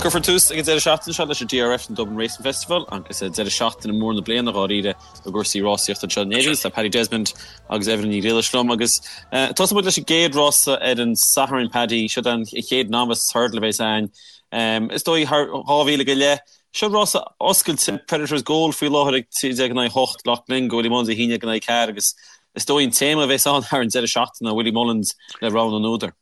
Bhuel, cuirfear tús ag an deireadh seachtaine seo leis an DRF, an Dublin Racing Festival, agus deireadh seachtaine mór na bliana dháiríre i gcúrsaí rásaíochta anseo in Éirinn. Tá Paddy Desmond agus Evelyn Ní Ghriallais liom agus tosóidh muid leis an gcéad rása ar an Satharn, Paddy. Seo an chéad novice hurdle a bheas ann. Is dóigh thar 2,000 go leith. Seo rása oscailte, Predators Gold faoi láthair ag 13 in aghaidh 8, Loughglynn go Willie Mullins 11 in aghaidh 4 agus is dóigh an téama a bheas ann thar an deireadh seachtaine ná Willie Mullins le rogha na n-údar.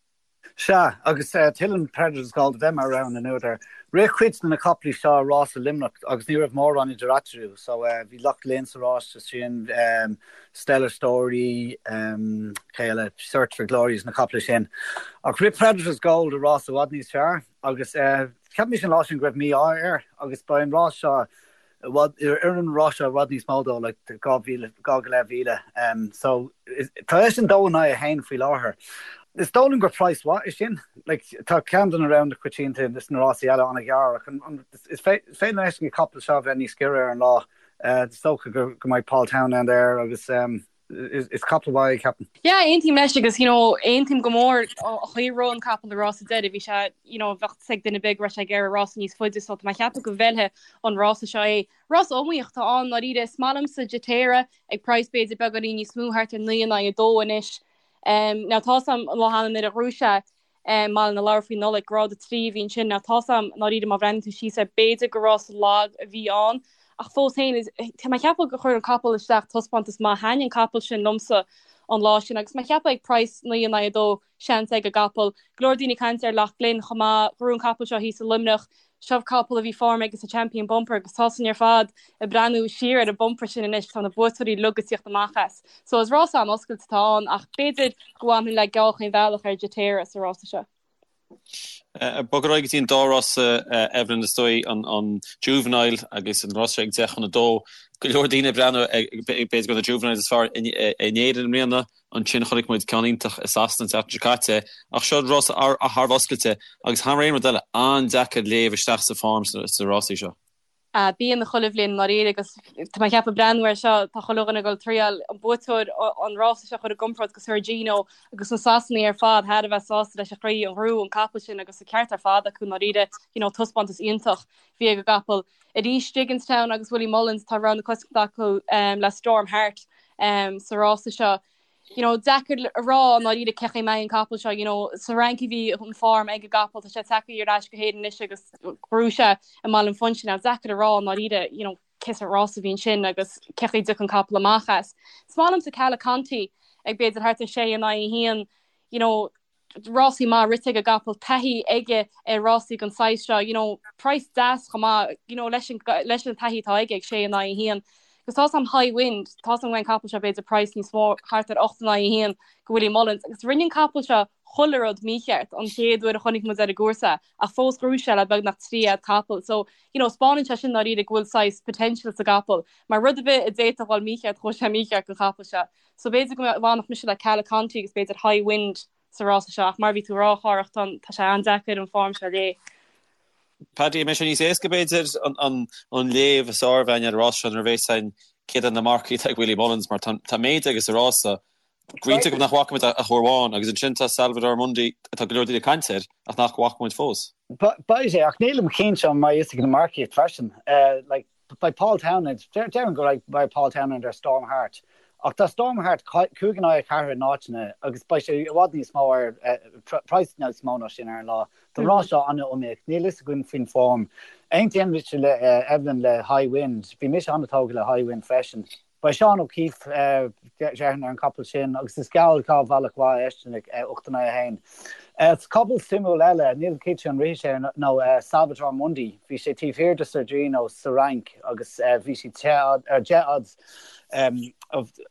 Sea, agus tuilleann Predators Gold a bheith mar rogha na n-údar. Rith cuid de na caiplí seo i rás i Luimneach agus ní raibh mórán idir eatarthu, so bhí Loughglynn sa rás sin, Stellar Story, cé eile, Search for Glory is na caiple sin. Ach rith Predators Gold i rás i bhfad níos fearr agus cheap mise an lá sin go raibh mí-ádh air agus ba an rás seo i bhfad, oireann an rás seo i bhfad níos mó dó, like 2,000, 2 go leith mhíle. So, tá eisean 2 in aghaidh 1 faoi láthair. Is dóigh liom gur praghas mhaith é sin. Like, tá ceann de na roghanna coitianta is na rásaí eile an-ghearr ach an, is féidir leis an gcapall seo a bheith níos giorra ar an lá. Is dócha go mbeidh Paul Townend air agus is capall mhaith é, ceapaim. Yeah, aontaím leis agus, you know, aontaím go mór an chaoi a raibh an capall i rás a deiridh, bhí sé, you know, bheadh fhios ag duine ar bith go raibh sé ag iarraidh rása níos faide so tá mé ag ceapadh go bhfeilfidh an rása seo é. Rás iomaíoch atá ann, ndáiríre, is maith liomsa Jetera ag praghas b'fhéidir beagáinín níos mó, thart ar 9 in aghaidh 2 anois. Um, now tá's a'm an lá cheana nuair a ghnóthaigh sé i mBaile na Lobhar faoi Nollaig, grád 3 a bhí ansin. Now tá's a'm, ndáiríre, má bhreathnaíonn tú síos air, b'fhéidir gur rás lag a bhí ann, ach fós féin, tá mé ag ceapadh gur chuir an capall isteach taispeántas maith. Thaitnigh an capall sin liomsa an lá sin agus mé ag ceapadh ag praghas 9 in aghaidh 2, seans ag an gcapall. Go leor daoine ag caint ar Loughglynn chomh maith, ghnóthaigh an capall seo thíos i Luimneach. Seo capall a bhí form aige sa Champion Bumper agus tá sin ar fad ag breathnú siar ar an bumper sin anois, tá na buaiteoirí uilig ag tíocht amach as. So is rás an-oscailte atá ann ach b'fhéidir go bhfanfainn le geall chaon bhealach ar Jetera sa rása seo. Bog ar aghaidh go dtí an dá rása, Evelyn, is dóigh, an Juvenile agus an rása seo ag 10 chun 2. Go leor daoine ag breathnú b'fhéidir gur na Juveniles is fearr in Éirinn i mbliana. Ansin chonaic muid ceann iontach i Sasana an tseachtain seo caite, ach seo rása thar a bheith oscailte agus thar aon rud eile, an-deacair léamh isteach sa form sna rásaí seo. Bíonn chuile bhliain i ndáiríre agus tá mé ag ceapadh breathnú air seo, tá chuile dhuine ag dul triail an buaiteoir an rása seo a chur i gcomparáid go Sir Gino agus na Sasanaigh ar fad thar a bheith sásta leis an chaoi a ghnóthaigh an capall sin agus an ceart ar fad acu i ndáiríre, you know, taispeántas iontach bhí ag an gcapall. Arís Gigginstown agus Willie Mullins tá rogha na coitiantachta acu le Storm Heart sa rása seo. You know, deacair a rá i ndáiríre cé chaoi a mbeidh an capall seo, you know, sa Fhrainc a bhí an form ag an gcapall, tá sé tagtha ar ais go hÉirinn anois agus ghnóthaigh sé i mBaile an Phúinse. Now, deacair a rá i ndáiríre, you know, cé sórt rás a bhí ansin agus cé chaoi a dtiocfaidh an capall amach as. Is maith liomsa Calaconti ag b'fhéidir thart ar 6 in aghaidh 1, you know, rásaí maith rite ag an gcapall, taithí aige ar rásaí den saghas seo, you know, praghas deas chomh maith, you know, leis an, leis an taithí atá aige ag 6 in aghaidh 1. Agus tá's a'm High Wind, tá's a'm go mbeidh an capall seo b'fhéidir praghas níos mó, thart ar 8 in aghaidh 1 go Willie Mullins. Agus rinne an capall seo chuile rud mícheart an chéad uair a chonaic muid ar an gcúrsa ach fós ghnóthaigh sé le beagnach 3 fhad capall. So, you know, 'spáineann sé sin dáiríre go bhfuil saghas potential sa gcapall. Mar rud ar bith a d'fhéadfadh a dhul mícheart, chuaigh sé mícheart don chapall seo. So b'fhéidir go bhfanfadh mise le Calaconti agus b'fhéidir High Wind sa rása seo ach mar a bhí tú a rá, a Chárthach, tá tá sé an-deacair an form seo a léamh. Paddy, an mbeidh sé níos éasca b'fhéidir an an léamh is fearr a bheith againn ar an rás seo nuair a bheas a fhios againn céard iad na marcaigh atá ag Willie Mullins mar tá tá méid aige sa rása go iontach nach bhfaca muid ach uair amháin agus ansin tá Salvator Mundi atá go leor daoine ag caint air ach nach bhfaca muid fós. Beidh sé ach nílim cinnte an mbeidh fhios ag na marcaigh freisin. Like Beidh Paul Townend, déarfainn go mbeidh Paul Townend ar Storm Heart, ach tá Storm Heart 5 in aghaidh 4 in áiteanna agus beidh sé i bhfad níos mó ar, praghas níos mó ná sin ar an lá. Tá an rás seo an-iomaíoch, níl fhios againn faoin form. Aontaíonn mise le Evelyn le High Wind, bhí mise an-tógtha le High Wind freisin. Beidh Seán O'Keeffe, déarfainn, ar an gcapall sin agus is geall dhá bhealach mhaith eisean ag 8 in aghaidh 1. Is capall suimiúil eile, nílim cinnte an rithfidh sé nó Salvator Mundi. Bhí sé taobh thiar de Sir Gino sa Fhrainc agus bhí sé 10 odds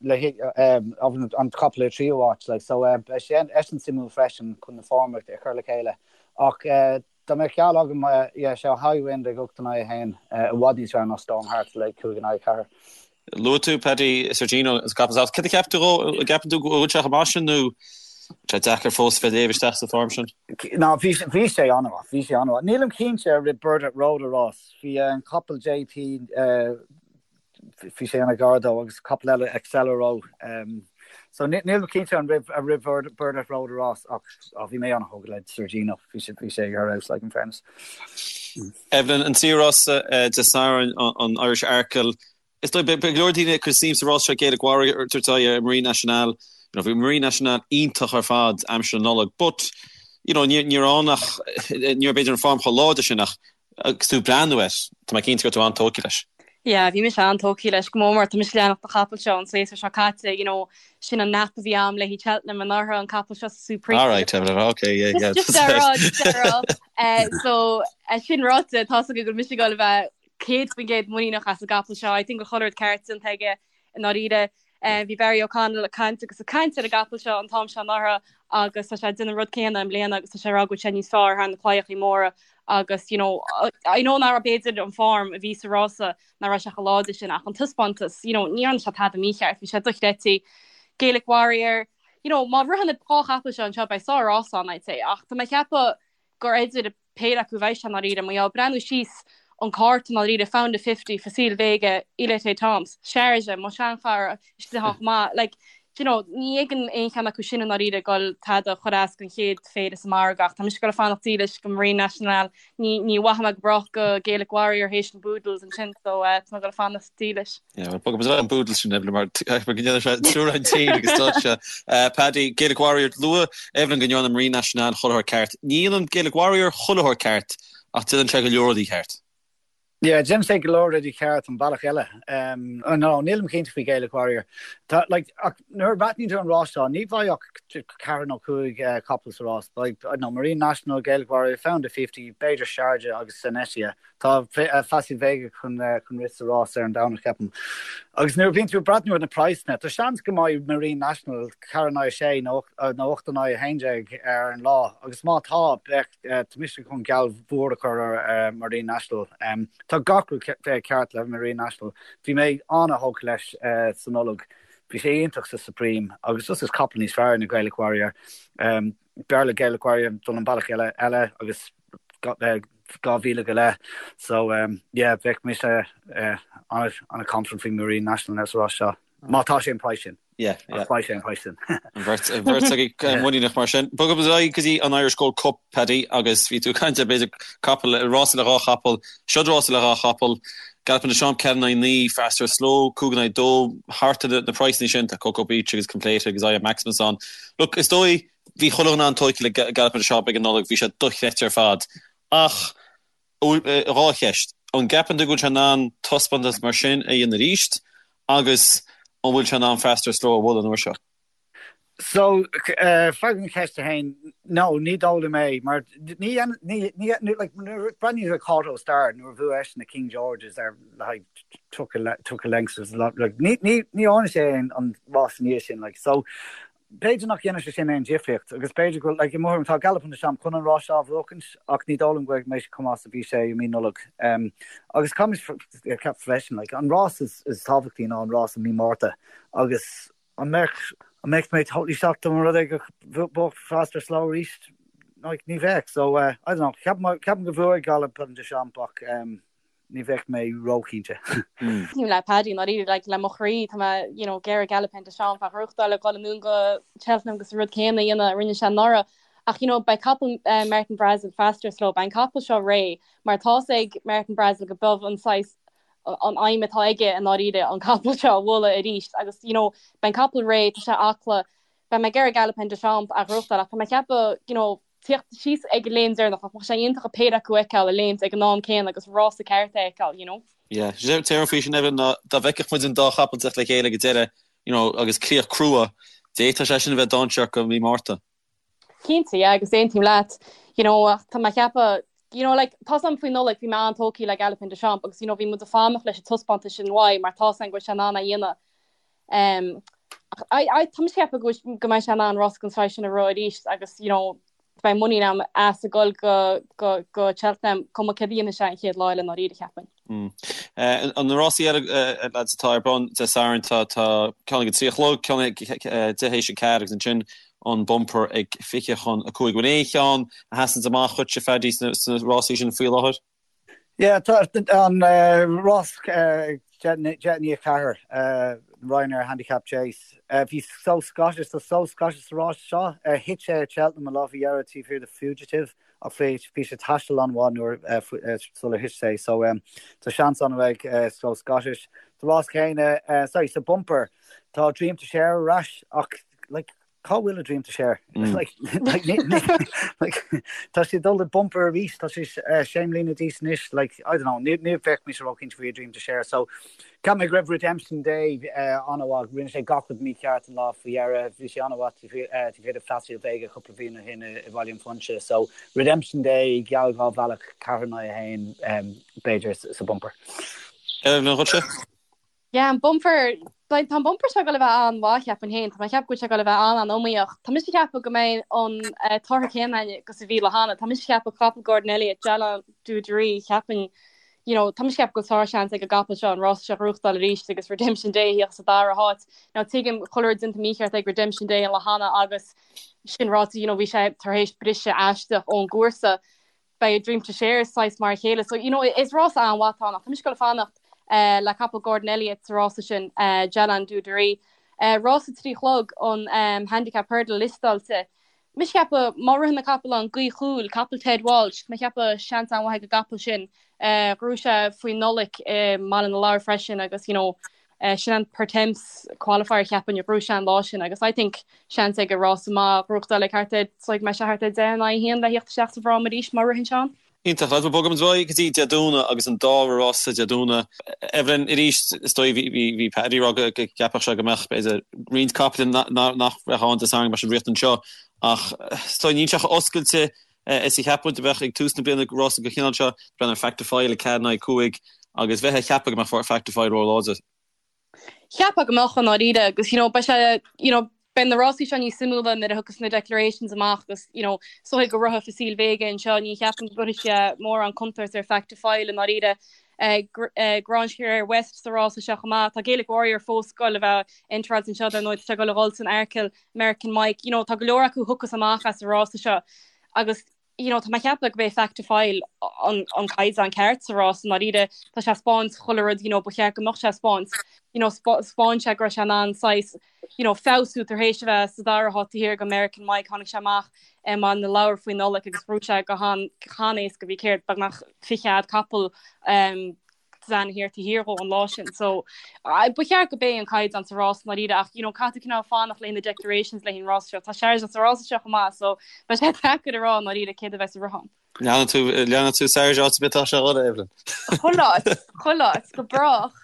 le an capall ar tríú háit. Like, so beidh sé eisean suimiúil freisin chun na form a chur le chéile. Ach Dá mbeadh geall agam, yeah, sé High Wind ag 8 in aghaidh 1, i bhfad níos fearr ná Storm Heart le 5 in aghaidh 4. Luaigh tú, Paddy, Sir Gino is capall sách. Céard a cheap tú dhó? An gceapann tú go bhfuil sé chomh maith sin nó tá sé deacair fós bheith ag léamh isteach sa form sin? Ná, bhí bhí sé an-mhaith, bhí sé an-mhaith. Nílim cinnte ar rith Burdett Road an rás. Bhí an capall JP, bhí sé an-ghar dó agus capall eile Accelero. So níl mé cinnte an raibh ar rith Burdett Road an rás ach bhí mé an-thógtha le Sir Gino, bhí sé bhí sé ar fheabhas like in fairness. Evelyn, an tríú rás Dé Sathairn, an Irish Arkle, Is dóigh, beidh go leor daoine ag cur suim sa rás seo, Gaelic Warrior ag tabhairt aghaidh ar Marine Nationale. You know, bhí Marine Nationale iontach ar fad aimsir na Nollag, but, you know, ní raibh ann ach, ní raibh b'fhéidir an form chomh láidir sin ach agus tú ag breathnú air, tá mé cinnte go raibh tú an-tógtha leis. Yeah, bhí mise an-tógtha leis go mór mór, tá mise ag leanacht an chapaill seo an séasúr seo caite, you know, sin an nap a bhí a'm le haghaidh Cheltenham anuraidh, an capall seo sa Supreme. All right, Evelyn, okay, yeah, yeah. Just, just a rá, just a rá. Eh, so, eh, sin ráite, tá's agaibh go bhfuil mise ag dul a bheith 100% muiníneach as an gcapall seo. I think go bhfuil chuile rud ceart déanta aige i ndáiríre. Bhí Barry O'Connell ag caint agus ag caint ar an gcapall seo an t-am seo anuraidh agus tá sé ag déanamh an rud céanna i mbliana agus tá sé ag rá go bhfuil sé níos fearr thar na claíochaí móra agus you know I know nach raibh b'fhéidir an form a bhí sa rása nach raibh sé chomh láidir sin ach an taispeántas you know ní dhearna sé tada mícheart bhí sé dochreidte. Gaelic Warrior you know má ritheann na dhá chapall seo anseo beidh sár-rás ann I'd say ach tá mé ag ceapadh gur idir péire acu a bheidh sé i ndáiríre. Mar gheall, breathnú síos an cárta i ndáiríre, Found a Fifty, Facile Vega, Il Etait Temps, Sharjah, mo sheanchara, istigh ann chomh maith. Like, do you know, ní fheicim aon cheann acu sin i ndáiríre ag dul tada a chur as don chéad phéire sa margadh ach tá mise ag dul a fanacht dílis go Marine Nationale. Ní, ní mhaithfidh mé go brách go Gaelic Warrior théis an Boodles ansin so eh, tá mé ag dul a fanacht dílis. Yeah, well, bogfaidh muid ar an Boodles sin, Evelyn, mar go ndéanann sé triúr an tír agus dúirt sé. Paddy, Gaelic Warrior, luaigh Evelyn go ndearna Marine Nationale chuile shórt ceart. Ní dhéanann Gaelic Warrior chuile shórt ceart, ach déanann sé go leor rudaí ceart. Yeah, déanann sé go leor rudaí ceart an bealach eile. Um, oh, no, nílim cinnte faoi Gaelic Warrior. Tá, like, ach nuair a bhreathnaíonn tú ar an rás seo, ní bheidh ach ceathair nó cúig uh, capall sa rás. Beidh, I don't know, Marine Nationale, Gaelic Warrior, Found a 50, b'fhéidir Sharjah agus Senecia. Tá Facile Vega chun rith sa rás ar an Domhnach, ceapaim. Agus nuair a bhíonn tú ag breathnú ar na praghsanna, tá seans go mbeidh Marine Nationale 4 in aghaidh 6 nó 8 in aghaidh 11 ar an lá. Agus má tá, beidh, tá mise chun geall mhór a chur ar Marine Nationale. Tá gach rud ceart le Marine Nationale. Bhí mé an-thógtha leis sa Nollaig. Bhí sé iontach sa Supreme agus just is capall níos fearr ná Gaelic Warrior. B'fhearr le Gaelic Warrior dul an bealach eile eile agus 2,000 go leith. So yeah, bheadh mise an-confident faoi Marine Nationale sa rás seo. Má tá sé an price sin. Yeah, yeah. Ach beidh sé an price sin. An bheirt an bheirt agaibh muiníneach mar sin. Bogfaidh muid ar aghaidh go dtí an Irish Gold Cup, Paddy, agus bhí tú ag caint ar b'fhéidir capall, rása le dhá chapall, seod rása le dhá chapall, Galopin Des Champs 4 in aghaidh 9, Fastorslow 5 in aghaidh 2, thart ar na praghsanna sin, tá Coko Beach agus Completer agus I Am Maximus ann. Look, is dóigh, Bhí chuile dhuine an-tógtha le Galopin Des Champs ag an Nollaig, bhí sé dochreidte ar fad. Ach, dhá cheist. An gceapann tú go bhfuil sé in ann taispeántas mar sin a dhéanamh arís? Agus an bhfuil sé in ann Fastorslow a bhualadh an uair seo? So, freagra an cheist a haon, no, ní dóigh liom é, mar ní, ní, ní, like, nuair a breathnaíonn tú ar Kauto Star nuair a bhuaigh eisean na King Georges ar le haghaidh 30 lengths, like, ní, ní, ní dhearna sé an rás ina dhiaidh sin, like, so, B'fhéidir nach dhéanfaidh sé sin aon difríocht agus b'fhéidir go, like, i mo thuairim, tá Galopin Des Champs chun an rás seo a bhuachaint ach ní dóigh liom go mbeidh sé chomh maith is a bhí sé i mí Nollag. Agus caithfimid ceapadh freisin, like, an rás is, is tábhachtaí ná an rás i mí Márta agus an mbeadh, an mbeadh mé totally shocked dá mba rud é go mbuafadh Fastorslow arís? Like, ní bheadh. So, I don't know, ceapaim, ceapaim go bhuafaidh Galopin Des Champs ach, ní bheadh mé róchinnte. Aontaím le Paddy, i ndáiríre, like, le mo chroí, tá mé, you know, ag iarraidh Galopin Des Champs a ghnóthachtáil ag dul anonn go Cheltenham agus an rud céanna a dhéanamh a rinne sé anuraidh. Ach, you know, beidh capall eh, Martin Brassil, Fastorslow, beidh an capall seo réidh, mar tá's ag Martin Brassil go b'in an saghas an aidhm atá aige i ndáiríre an capall seo a bhualadh arís agus, you know, beidh an capall réidh, tá sé acla, beidh mé ag iarraidh Galopin Des Champs a ghnóthachtáil ach tá mé ag ceapadh, you know, tíocht síos ag an léim deireanach, ach bheadh sé iontach an péire acu a fheiceáil ag léimt ag an am céanna agus rása ceart a fheiceáil, you know. Yeah, sé an faoi sin Evelyn ná dá bhfeicfeadh muid an dá chapall teacht le chéile ag an deireadh, you know, agus críoch crua, d'fhéadfadh sé sin a bheith dainséarach go mí Márta. Cinnte, yeah, agus aontaím leat, you know, ach tá mé ag ceapadh, you know, like, tá's a'm faoi Nollaig, bhí mé an-tógtha le Galopin Des Champs agus, you know, bhí muid ag fanacht leis an taispeántas sin uaidh mar tá's a'm go bhfuil sé in ann é a dhéanamh. Um, I, I, tá mise ag ceapadh go go mbeidh sé in ann rás den saghas sin a rith arís agus, you know, beidh muinín agam as ag dul go, go, go Cheltenham, cuma céard a dhéanfaidh sé an chéad lá eile i ndáiríre, cheapfainn. Mm. Eh, an na rásaí eile, eh, lads atá ar bun Dé Sathairn, tá, tá ceann ag a trí a chlog, ceann ag eh, deich théis a ceathair agus ansin an bumper ag 25. Bhfuil aon cheann a sheasann amach dhuitse, Phaddy, sna, sna rásaí sin faoi láthair? Yeah, tá an rás ag 3:50. Ryanair Handicap Chase. Bhí So Scottish, tá So Scottish sa rás seo. Thit sé ag Cheltenham an lá faoi dheireadh taobh thiar de Fugitive ach bhí sé ag taisteal an-mhaith nuair sular thit sé. So tá seans an-mhaith ag So Scottish. Sa rás céanna, sorry, sa bumper, tá Dream to Share ar ais ach like, Cá bhfuil a Dream to Share? Like, like, like, tá sé ag dul i bumper arís, tá sé sé mbliana d'aois anois, like, I don't know, ní ní bheadh mise róchinnte faoi a Dream to Share. So, cheap mé go raibh Redemption Day an-mhaith, rinne sé gach rud mícheart an lá faoi dheireadh, bhí sé an-mhaith taobh thiar de Facile Vega cúpla bliain ó shin i Bhaile an Phúinse. So, Redemption Day, geall 2 bhealach, 4 in aghaidh 1, b'fhéidir, sa bumper. Evelyn, dhuitse? Yeah, an bumper, tá an bumper seo ag dul a bheith an-mhaith, cheapfainn féin. Tá mé ag ceapadh go bhfuil sé ag dul a bheith an-an-iomaíoch. Tá mise ag ceapadh go mbeidh an tortha céanna againn agus a bhí lá cheana. Tá mise ag ceapadh capall Gordon Elliott, Jallon Du Drury, cheapfainn, you know, tá mise ag ceapadh go bhfuil sár-sheans ag an gcapall seo an rás seo a ghnóthachtáil arís agus Redemption Day a theacht sa dara háit. Now tuigim chuile rud déanta mícheart ag Redemption Day an lá cheana agus sin ráite, you know, bhí sé tar éis briseadh aisteach ón gcúrsa. beidh A Dream to Share saghas mar a chéile. So, you know, is rás an-mhaith atá ann ach tá mise ag dul a fanacht le capall Gordon Elliott sa rása sin, Jallon Du Drury. Rás a 3 a chlog an Handicap Hurdle liostáilte. Mise ag ceapadh má ritheann an capall an Gaoth Chúil, capall Ted Walsh, tá mé ag ceapadh seans an-mhaith ag an gcapall sin. Ghnóthaigh sé faoi Nollaig i mBaile na Lobhar freisin agus, you know, Sin an Pertemps qualifier cheapfainn a ghnóthaigh sé an lá sin agus I think seans aige rása maith a ghnóthachtáil ag thart ar, so go mbeidh sé thart ar 10 in aghaidh 1 le theacht isteach sa bhfráma arís má ritheann sé ann. Iontach. Lads, bogfaidh muid ar aghaidh go dtí Dé Domhnaigh agus an dara rása Dé Domhnaigh. Evelyn, arís, is dóigh bhí bhí Paddy ag rá go gceapfadh sé go mbeadh b'fhéidir roinnt capaill nach mbeadh ann Dé Sathairn go mbeadh siad ag rith anseo ach is dóigh níl sé chomh oscailte is a cheap muid a bheadh ag tús na bliana rása den chineál seo, breathnaigh ar Fact To File ag 4 in aghaidh 5 agus bheifeá ag ceapadh go mbeadh Fact To File ró-láidir. Cheapfá go mbeadh i ndáiríre agus you know beidh sé you know beidh na rásaí seo níos suimiúla nuair a thiocfas na declarations amach agus you know is dóigh go rithfidh Facile Vega anseo ní cheapaim go gcuirfidh sé mórán contúirt ar Fact To File i ndáiríre. Grangeclare West sa rása seo chomh maith. Tá Gaelic Warrior fós ag dul a bheith entráilte anseo dar ndóigh tá sé ag dul a dhul san Arkle American Mike, you know, tá go leor acu a thiocfas amach as an rása seo agus you know, tá mé ag ceapadh go b'é Fact To File an, an caighdeán ceart sa rás i ndáiríre. Tá sé ag 'spáint chuile rud, you know, ba cheart go mbeadh sé ag 'spáint. You know, 'spáin sé go raibh sé in ann saghas, you know, feabhsú tar éis a bheith sa dara háit taobh thiar de American Mike, tháinig sé amach i mBaile na Lobhar faoi Nollaig agus ghnóthaigh sé go han, han-éasca, bhí céard, beagnach fichead capall um, Zanahiyr taobh thiar dhó an lá sin. So ba cheart go b'é an caighdeán sa rás i ndáiríre ach you know caithfidh tú cineál fanacht le na declarations le an rás seo. Tá Sharjah sa rása seo chomh maith so beidh sé deacair a rá i ndáiríre céard a bheas ag rith ann. Leanann tú leanann tú Sharjah áit ar bith atá sé a Evelyn. Chuile áit, chuile áit, go brách.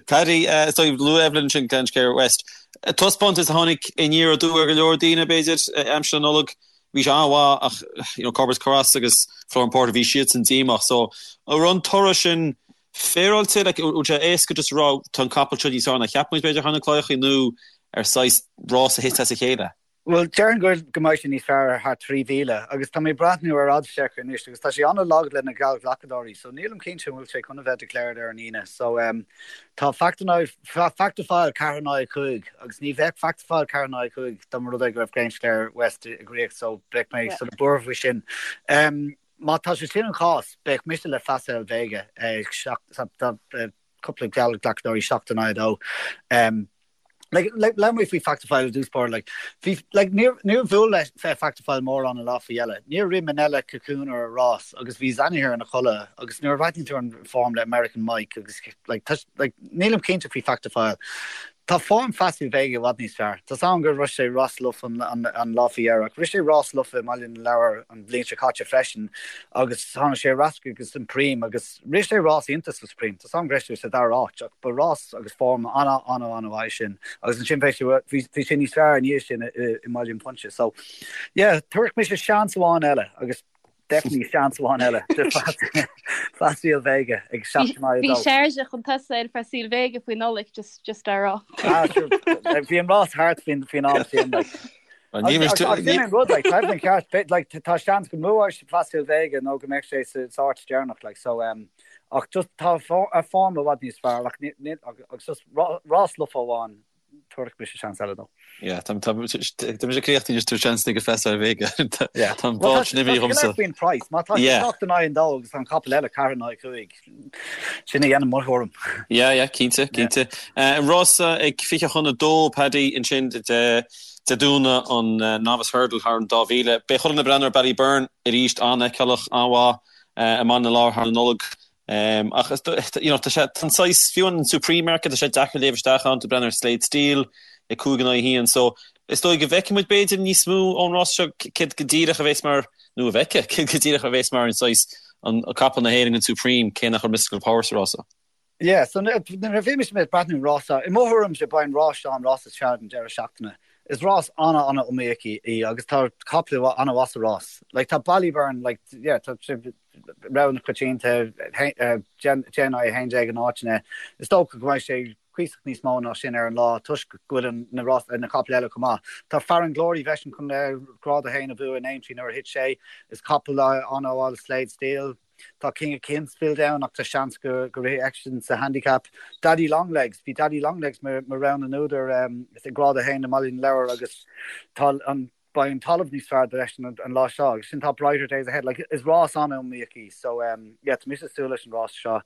Paddy, is dóigh luaigh Evelyn sin Grangeclare West. Taispeántas a tháinig aniar aduaidh ar go leor daoine b'fhéidir aimsir na Nollag. Bhí sé an-mhaith ach you know Corbett's Cross agus Flooring Porter bhí siadsan díomách so an raibh an toradh sin féaráilte like an bhfuil sé éasca just a rá tá an capall seo níos fearr ná cheap muid b'fhéidir thar na claíochaí nó ar saghas rás a thit as a chéile? Bhuel déarfainn go go mbeidh sé níos fearr thar 3,000 agus tá mé ag breathnú ar Oddschecker anois agus tá sé an-lag le na geallghlacadóirí so nílim cinnte an bhfuil sé chun a bheith declared ar an Aoine so um, tá Fact Fact To File 4 in aghaidh 5 agus ní bheadh Fact To File 4 in aghaidh 5 dá mba rud é go raibh Grangeclare West ag rith so beidh mé sort of buartha faoi sin. Má tá sé sin an chás, beidh mise le Facile Vega ag tá cúpla geallghlacadóirí 7 in aghaidh 2. Like, labhair mé faoi Fact To File i dtús báire, like, bhí, like, níor, níor bhuail le Fact To File mórán an lá faoi dheireadh. Níor rith Minella Cocooner an rás agus bhí Zanahiyr ina chodladh agus nuair a bhreathnaíonn tú ar an form le American Mike agus, like, tá, like, nílim cinnte faoi Fact To File. Tá form Facile Vega i bhfad níos fearr. Tá's agam gur rith sé rás lofa an, an, an lá faoi dheireadh ach rith sé rás lofa i mBaile na Lobhar an bhliain seo caite freisin agus tháinig sé ar ais agus Supreme agus Rith sé rás iontach sa Supreme, tá's agam go raibh sé sa dara háit ach ba rás agus form an-an-an-mhaith sin agus ansin bhí sé bhí sé níos fearr i ndiaidh sin i mBaile an Phúinse. So yeah, tabharfaidh mise seans amháin eile agus definitely seans amháin eile do Facile Vega ag 7 in aghaidh 2. Bhí Sharjah chun tosaigh ar Facile Vega faoi Nollaig just just á rá. Ah sure, bhí an rás thart faoin faoin am sin like. Agus sin an rud, like, tá an ceart, like, tá seans go mbuafadh Facile Vega nó go mbeadh sé sa áit deireanach, like, so, um, ach just tá a form i bhfad níos fearr, ach agus just rás lofa amháin. Tabharfaidh mise seans eile dó. Yeah, tá tá mise críochnaithe anois tabhair seans ag Festa ar Vega. Yeah. Tá an bád sin imithe dhomsa. Faoin price, má tá sé 7 in aghaidh an dó agus tá an capall eile 4 in aghaidh 5, sin a dhéanann mo thuairim. Yeah, yeah, cinnte, cinnte. An rása ag 20 chun 2, Paddy, ansin Dé Domhnaigh an Novice Hurdle thar an 2000. Beidh chuile dhuine ag breathnú ar Ballyburn arís, an-fheiceálach, an-mhaith i mBaile na Lobhar thar an Nollaig. Ach is you know tá sé tá an saghas fiú an Supreme market tá sé deacair léamh isteach ann tú ag breathnú ar Slate Steel ag 5 in aghaidh 1 so is dóigh go bhfeicfidh muid b'fhéidir níos mó ón rás seo céard go díreach a bheas mar nó a bhfeicfidh céard go díreach a bheas mar an saghas an capall na hÉireann an Supreme cé nach raibh Mystical Power sa rás seo. Yeah, so nuair a bhí mise ag breathnú an rás seo, i mo thuairimse beidh an rás seo an rás is fearr den deireadh seachtaine. Is rás ana-ana-iomaíoch í agus tá caiple an-mhaith sa rás. Like tá Ballyburn, like yeah, tá sé rogha na coitianta, 10 in aghaidh 11 in áiteanna. Is dócha go mbeidh sé cuíosach níos mó ná sin ar an lá toisc go bhfuil na rás, na caiple eile chomh maith. Tá Farren Glory freisin chun grád 1 a bhua in Aintree nuair a thit sé. Is capall an-mhaith Slade Steel. Tá King of Kingsfield ann ach tá seans go rithfidh eisean sa handicap. Daddy Longlegs, bhí Daddy Longlegs mar rogha na n-údar i grád 1 i mBaile na Lobhar agus tá an beidh an talamh níos fearr dó-eisean an lá seo agus sin tá Brighter Days Ahead. Like, is rás an-iomaíoch í so yeah, tá mise ag súil leis an rás seo.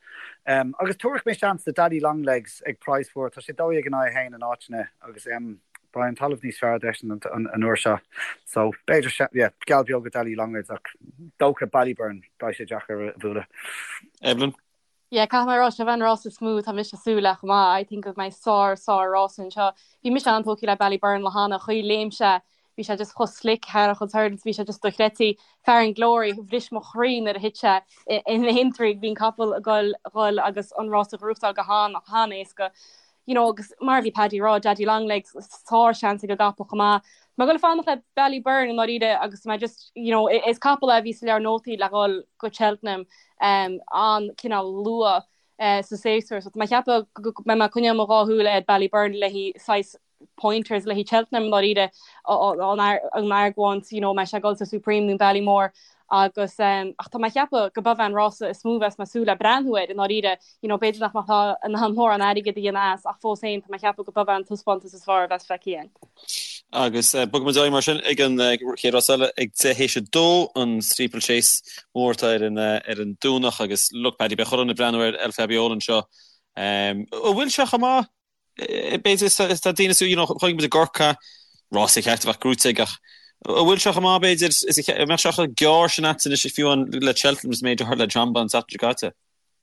Agus tabharfaidh mé seans do Daddy Longlegs ag praghas mhór, tá sé 12 in aghaidh 1 in áiteanna agus beidh an talamh níos fearr dó-eisean an uair seo. So, b'fhéidir, yeah, geall beag ar Daddy Longlegs ach dócha Ballyburn, beidh sé deacair a bhualadh. Evelyn? Yeah, caithfidh mé a rá, seo an rás is mó atá mise ag súil le chomh maith. I think go mbeidh sár, sár rás anseo. Bhí mise an-tógtha le Ballyburn le hana chaoi léim sé, bhí sé just chomh slick thar a chuid hurdles, bhí sé just dochreidte. Farren Glory, bhris mo chroí nuair a thit sé in Aintree, bhí an capall ag goil, ghoil agus an rás a ghnóthachtáil go han, han-éasca. you know, agus mar a bhí Paddy ag rá, Daddy Longlegs, sár seans ag an gcapall chomh maith. Tá mé ag goil fanacht le Ballyburn i ndáiríre agus mé just, you know, is capall é a bhí sa leabhar nótaí le dhul go Cheltenham um, an cineál luath uh, sa séasúr. So tá mé ag ceapadh go mbeidh mé ag coinneáil mo dhá shúil ar Ballyburn le haghaidh saghas pointers le haghaidh Cheltenham i ndáiríre an argóint, you know, mbeidh sé ag dul sa Supreme nó Ballymore agus ach tá mé ag ceapadh go b'é an rása is mó a bheas mé ag súil le breathnú air i ndáiríre, you know, b'fhéidir nach mbeadh in ann mórán airgid a dhéanamh as ach fós féin tá mé ag ceapadh go b'é an taispeántas is fearr a bheas feicthe againn. Agus bogfaidh muid ar aghaidh mar sin ag an chéad rás eile ag 10 théis 2, an Steeplechase mór atá ar an ar an Domhnach agus look Paddy, beidh chuile dhuine ag breathnú ar El Fabiolo anseo. An bhfuil sé chomh maith? B'fhéidir is tá daoine you know chonaic muid i gCorcaigh rása ceart a bheadh gnóite aige ach an bhfuil sé chomh maith b'fhéidir is a mbeadh sé chomh gearr sin agat anois fiú amháin le Cheltenham is méid a tharla le Jonbon an tseachtain seo caite.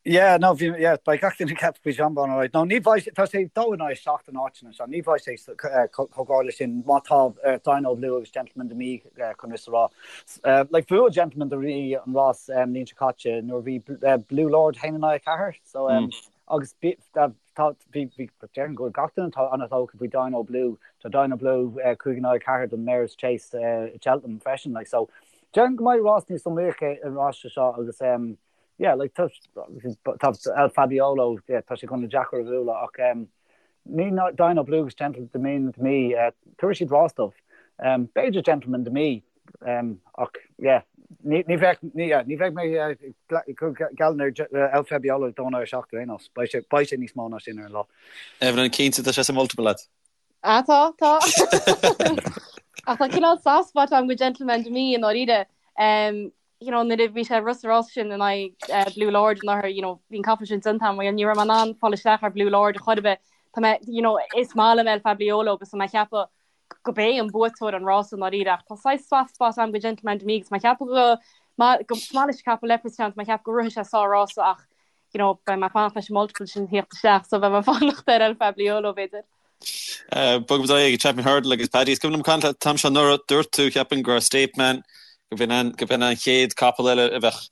Yeah, no, bhí, yeah, beidh gach duine ag ceapadh faoi Jonbon, alright. No, ní bheidh, tá sé dó in aghaidh 7 in áiteanna anseo, ní bheidh sé chomh gar leis sin má tá Dino Blue agus Gentleman De Mee chun rith sa rás. Like, bhuaigh Gentleman De Mee an rás an bhliain seo caite nuair a bhí Blue Lord 1 in aghaidh 4, so, agus Tá, bhí, bhí, déarfainn go bhfuil gach duine atá an-tógtha faoi Dino Blue. Tá Dino Blue 5 in aghaidh 4 don Mares Chase i Cheltenham freisin, like, so déarfainn go mbeidh rás níos iomaíocha an rás seo agus um, yeah, like, tá, tá El Fabiolo, yeah, tá sé chun deacair a bhualadh ach um, ní Dino Blue agus Gentleman De Mee, uh, tabharfaidh siad rás dóibh. Um, b'fhéidir Gentleman De Mee, Ach yeah, ní bheadh ní bheidh mé ag cur geall ar El Fabiolo ag dó in aghaidh 7 ar aon nós. Beidh sé beidh sé níos mó ná sin ar an lá. Evelyn, cinnte tá sé sa multiple agat. Ah tá, tá. Ach tá cineál soft spot agam do Gentleman De Mee i ndáiríre. You know, nuair a bhí sé ag rith sa rás sin in aghaidh Blue Lord anuraidh, you know, bhí an capall sin déanta agam, ní raibh mé in ann fáil isteach ar Blue Lord a chor ar bith. Tá mé, you know, is maith liom El Fabiolo agus tá mé ag ceapadh go b'é an buaiteoir an rása i ndáiríre ach tá saghas soft spot agam do Gentleman De Mee agus mé ag ceapadh go go maith leis an capall Leopardstown tá mé ag ceapadh go rithfidh sé sár rása ach you know beidh mé ag fanacht leis an multiple sin theacht isteach so beidh mé ag fanacht ar El Fabiolo b'fhéidir. Bogfaidh muid ar aghaidh ag Champion Hurdle agus Paddy is cuimhin liom caint leat an t-am seo anuraidh dúirt tú cheapfainn go raibh State Man go b'in an go b'in an chéad capall eile a bheadh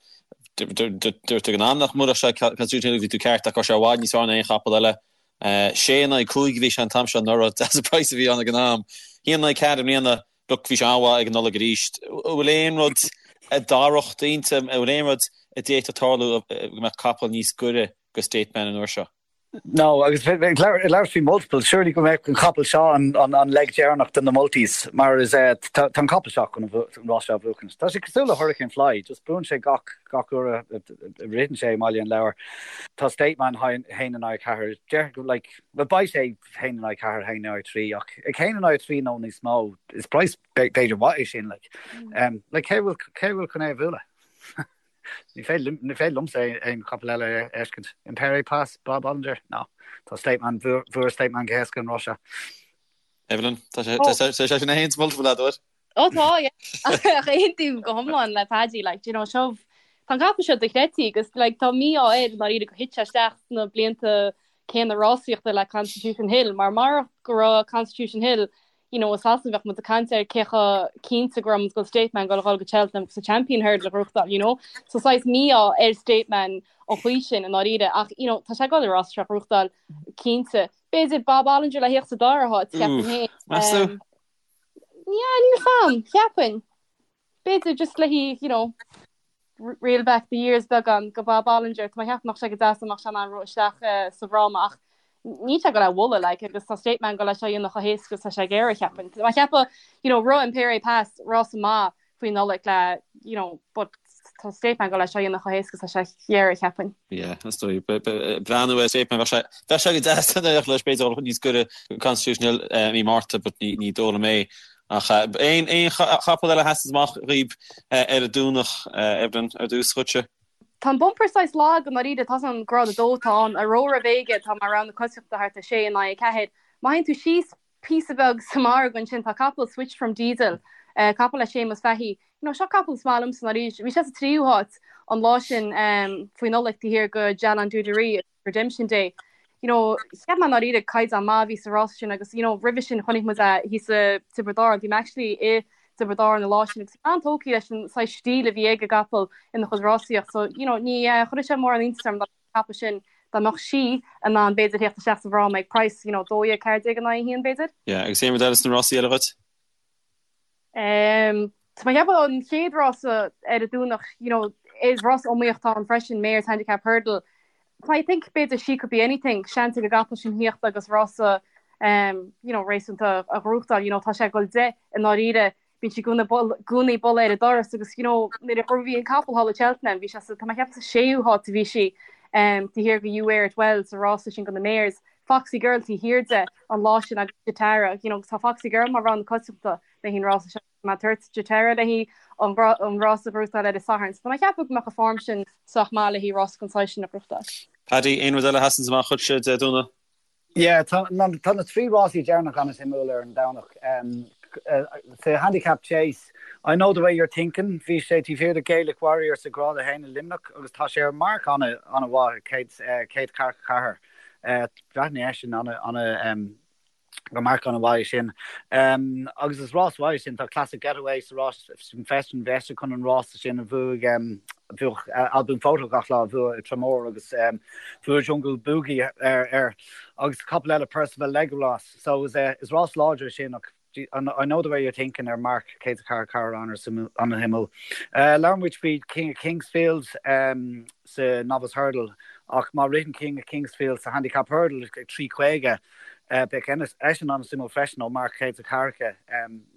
dúirt tú ag an am nach mbuailfeadh sé Constitution Hill bhí tú ceart ach go raibh sé i bhfad níos fearr ná aon chapall eile 6 in aghaidh 5 a bhí sé an t-am seo anuraidh. Deas an praghas a bhí ann ag an am. 1 in aghaidh 4 i mbliana. Look, bhí sé an-mhaith ag an Nollaig arís. An bhfuil aon rud a d'athródh d'intinn? An bhfuil aon rud a d'fhéadfadh tarlú go mbeadh capall níos gaire do State Man an uair seo? No, agus ag labhairt faoi multiples, surely go mbeadh an capall seo an leg deireanach de na multis, mar is tá an capall seo chun an rás seo a bhuachan. Tá sé cosúil le Hurricane Fly, just buann sé gach gach uair a ritheann sé i mBaile an Lobhair. Tá State Man 1 in aghaidh 4, déarfainn go like, well beidh sé 1 in aghaidh 4, 1 in aghaidh 3, ach ag 1 in aghaidh 3 nó níos mó, is price b'fhéidir mhaith é sin, like. Like cé bhfuil cé bhfuil chun é a bhualadh? Ní féidir liomsa aon chapall eile a fheiscint. Impaire Et Passe, Bob Olinger? No. Tá State Man, bhuaigh State Man go héasca an rás seo. Evelyn, tá sé sin a haon sa multiple agat, duit? Ó tá, yeah. Ach aontaím go hiomlán le Paddy, like, do you know, seo, tá an capall seo dochreidte agus, like, tá mí-ádh air i ndáiríre gur thit sé isteach sna blianta céanna rásaíochta le Constitution Hill, mar marach go raibh Constitution Hill you know, i Sasana bheadh muid ag caint ar cé chomh cinnte go raibh muid go bhfuil State Man ag dul go Cheltenham agus an Champion Hurdle a ghnóthachtáil, you know. So saghas mí-ádh ar State Man an chaoi sin i ndáiríre ach, you know, tá sé ag dul an rás seo a ghnóthachtáil cinnte. B'fhéidir Bob Olinger le theacht sa dara háit, ceapaim féin. Meas tú? Um, yeah, níl a fhios a'm, cheapfainn. B'fhéidir just le hí, you know, reel back the years beagán go Bob Olinger, tá mé ag ceapadh go mbeadh sé go deas dá mbeadh sé in ann rith isteach sa bhfráma ach níl sé ag dul é a bhualadh like agus tá State Man ag dul é seo a dhéanamh chomh héasca is tá sé ag iarraidh cheapfainn. Tá mé ag ceapadh you know rith Impaire Et Passe rása maith faoi Nollaig le you know but tá State Man ag dul é seo a dhéanamh chomh héasca is tá sé ag iarraidh cheapfainn. Yeah, is dóigh. Breathnú ar State Man bheadh sé bheadh sé go deas dá n-éireodh leis b'fhéidir dul níos gaire go Constitution Hill i mí Márta but ní ní dóigh liom é. Ach aon aon chapall eile a sheasann amach dhaoib ar an Domhnach, Evelyn, ar dtús dhuitse? Tá an bumper saghas lag i ndáiríre, tá an grád 2 atá ann, Aurora Vega atá mar rogha na coitiantachta thart ar 6 in aghaidh 4. Má théann tú síos píosa beag sa margadh ansin tá capall Switch From Diesel, capall le Séamus Fahey. You know, seo capall is maith liomsa i ndáiríre. Bhí sé sa tríú háit an lá sin faoi Nollaig taobh thiar de Jalan Duderee. Redemption Day. You know, cheap mé i ndáiríre caighdeán maith a bhí sa rás sin agus you know, roimhe sin chonaic muid é thíos i Tiobraid Árann. Bhí mé actually i dTiobraid Árann an lá sin agus an-tógtha leis an saghas stíl a bhí ag an gcapall ina chuid rásaíocht. So, you know, ní eh, chuirfeadh sé mórán iontais orm dá mbeadh an capall sin dá mbeadh sí in ann b'fhéidir theacht isteach sa bhfráma ag price, you know, 12, 14 in aghaidh 1 b'fhéidir. Yeah, agus aon rud eile sna rásaí eile dhuit? Tá mé ag ceapadh an chéad rása ar an Domhnach, you know, is rás iomaíoch atá ann freisin, Mares Handicap Hurdle. I think b'fhéidir She Could Be Anything, seans ag an gcapall sin theacht agus rása um, you know, réasúnta a ghnóthachtáil, you know, tá sé ag dul 10 i ndáiríre, bíonn sí i gcónaí ag bualadh ar an doras agus, you know, nuair a bhí an capall thall i Cheltenham, bhí sé sa, tá mé ag ceapadh sa séú háit a bhí sí um, taobh thiar de You Wear It Well sa rása sin do na Mares. Foxy Girl taobh thiar de an lá sin agus Jatara, you know, tá Foxy Girl mar rogha na coitiantachta le haghaidh an rása seo. Tá mé ag tabhairt Jatara le haghaidh an rása a ghnóthachtáil ar an Satharn. So tá mé ag ceapadh go mbeadh an form sin sách maith le haghaidh rása den saghas sin a ghnóthachtáil. Paddy, aon rud eile a sheasanns amach dhuitse Dé Domhnaigh? Yeah, tá na trí rásaí deireanach an-suimiúil ar an Domhnach. Sa Handicap Chase, I Know The Way You're Thinking, bhí sé taobh thiar de Gaelic Warrior sa Grád 1 i Luimneach agus tá sé ar marc an-mhaith, 144. Breathnaíonn eisean ana gur marc an-mhaith é sin. Agus is rás mhaith é sin, tá Classic Getaway sa rás sin freisin, bhí eisean chun an rása sin a bhuaigh, bhuaigh Al Boum Photo gach lá a bhuaigh i Tramore agus bhuaigh Jungle Boogie air agus capall eile Percival Legolas. So is rás láidir é sin ach I know the way you're thinking ar marc 144 an-suimiúil. Labhair muid faoi King of Kingsfield sa Novice Hurdle ach má ritheann King of Kingsfield sa Handicap Hurdle ag 3.50 beidh eisean an-suimiúil freisin ó marc 140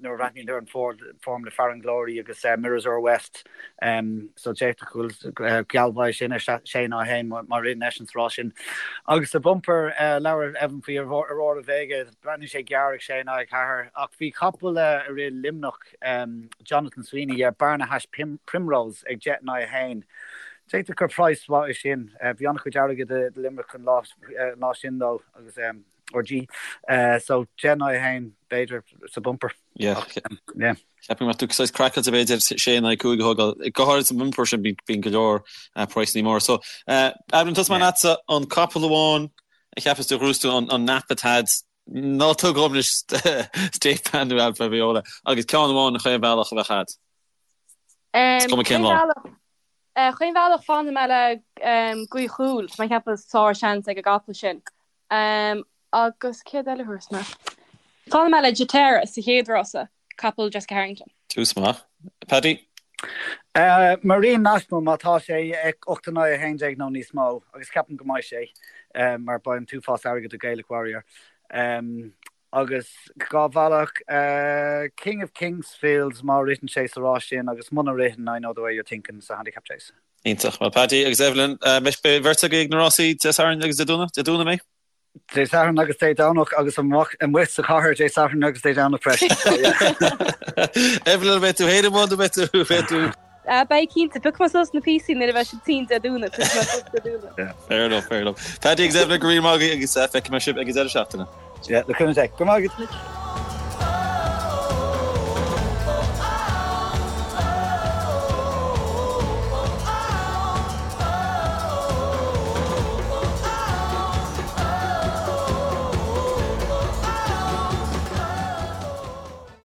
nuair a bhreathnaíonn ar an form le Farren Glory agus Mirazur West so d'fhéadfadh go bhfuil geall mhaith sin ar 6 in aghaidh 1 má ritheann eisean sa rás sin. Agus sa bumper labhair Evan faoi Aurora Vega Breathnaíonn sé gearr ag 6 in aghaidh 4 ach bhí capall a rith Luimneach, Jonathan Sweeney, yeah, Barnahash Primrose ag 10 in aghaidh 1. D'fhéadfadh gur praghas mhaith é sin. Bhí an-chuid airgid i Luimneach an lá sin dó agus RG. So 10 in aghaidh 1 b'fhéidir sa bumper. Yeah. Yeah. Ceapaim go mbeadh tú saghas craiceáilte b'fhéidir 6 in aghaidh 5 a thógáil. Go háirid sa bumper sin bíonn go leor praghsanna móra. So, Evelyn, tosóidh mé leatsa an capall amháin a cheapas tú a ghnóthós tú an nap atá a'd, ná tóg dhom anois State Man nó Alfa Viola agus ceann amháin chaon bhealach a bheadh a'd. Is cuma cén lá. Chaon bhealach fanfaidh mé le Gaoth Chúil, tá mé ag ceapadh sár seans ag an gcapall sin. Agus céard eile a thabharfas mé? Fanfaidh mé le Jatera sa chéad rása, capall Jessica Harrington. Tús maith. Paddy? Marine National má tá sé 8 in aghaidh 11 nó níos mó, agus ceapaim go mbeidh sé, mar beidh an t-uafás airgid ag Gaelic Warrior. Agus dhá bhealach, King of Kingsfield má ritheann sé sa rás sin agus muna ritheann, I Know The Way You're Thinking sa Handicap Chase. Iontach. Bhuel Paddy agus Evelyn, beidh beirt agaibh ag na rásaí Dé Sathairn agus Dé Domhnaigh? Dé Domhnaigh mé? Dé Sathairn agus Dé Domhnach agus amach amuigh sa chathair Dé Sathairn agus Dé Domhnach freisin. So yeah. Evelyn, an mbeidh tú féin amuigh nó beidh tú, beidh tú? Ah, beidh cinnte. Piocfaidh mé suas na píosaí nuair a bheidh siad tinn Dé Domhnaigh. Piocfaidh mé suas Dé Domhnaigh. Yeah, fair enough, fair enough. Paddy agus Evelyn, go raibh míle maith agaibh agus feicfidh mé sibh ag an deireadh seachtaine. Yeah, le cúnamh Dé. Go raibh maith agat.